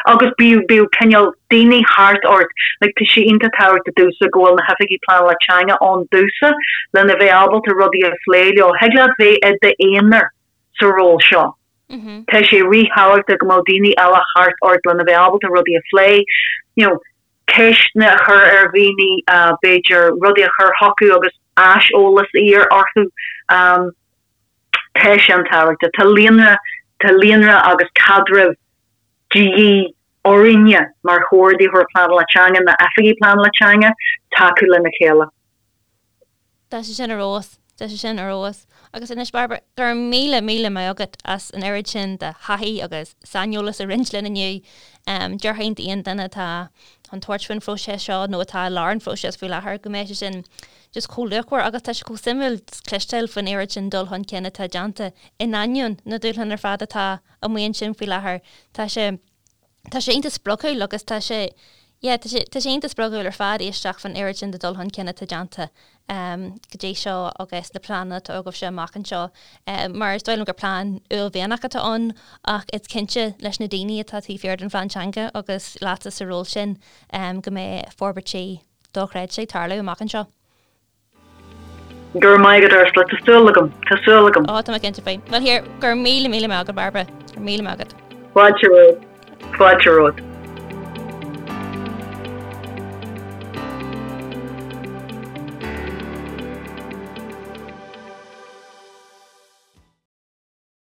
Agus bíodh, bíodh cineál daoine thart ort, like tá sé iontach tábhachtach domhsa go bhfuil na hoifigigh pleanála teanga ann domhsa lena bheith ábalta rudaí a phlé leo. Thig leat bheith i d'aonar sa ról seo. Tá sé ríthábhachtach go mbeadh daoine eile thart ort lena bheith ábalta rudaí a phlé, you know, ceisteanna a chur ar dhaoine, b'fhéidir rudaí a chur chucu agus aiseolas a iarraidh orthu. Tá sé an-tábhachtach. Tá líonra, tá líonra agus caidreamh de dhíth orainne mar chomhordaitheoir pleanála teanga, na oifigigh pleanála teanga, tacú lena chéile. Tá sé sin ar fheabhas. Tá sé sin ar fheabhas. Agus anois, Bairbre, go raibh míle, míle maith agat as an oiread sin de thaithí agus saineolas a roinnt linn inniu. Déarfainn d'aon duine atá chun tabhairt faoin phróiseas seo nó atá i lár an phróisis faoi láthair go mbeidh sé sin just chomh luachmhar agus tá sé chomh suimiúil cloisteáil faoin oiread sin dul chun cinn atá déanta in ainneoin na dúshlán ar fad atá amuigh ansin faoi láthair. Tá sé tá sé iontach spreagúil agus tá sé yeah tá sé tá sé iontach spreagúil ar fad éisteacht faoin oiread sin de dul chun cinn atá déanta go dtí seo agus na pleananna atá agaibhse amach anseo. Mar is dóigh liom gur plean uaillmhianach atá ann ach is cinnte leis na daoine atá taobh thiar den phlean teanga agus leatsa sa ról sin go mbeidh forbairtí dochreidte ag tarlú amach anseo. Go raibh maith agat Ursula, tá súil agam, tá súil agam. Ó, tá mé cinnte faoi. Bhuel here, go raibh míle míle maith agat Bairbre, go raibh míle maith agat. Fáilte romhat, fáilte romhat.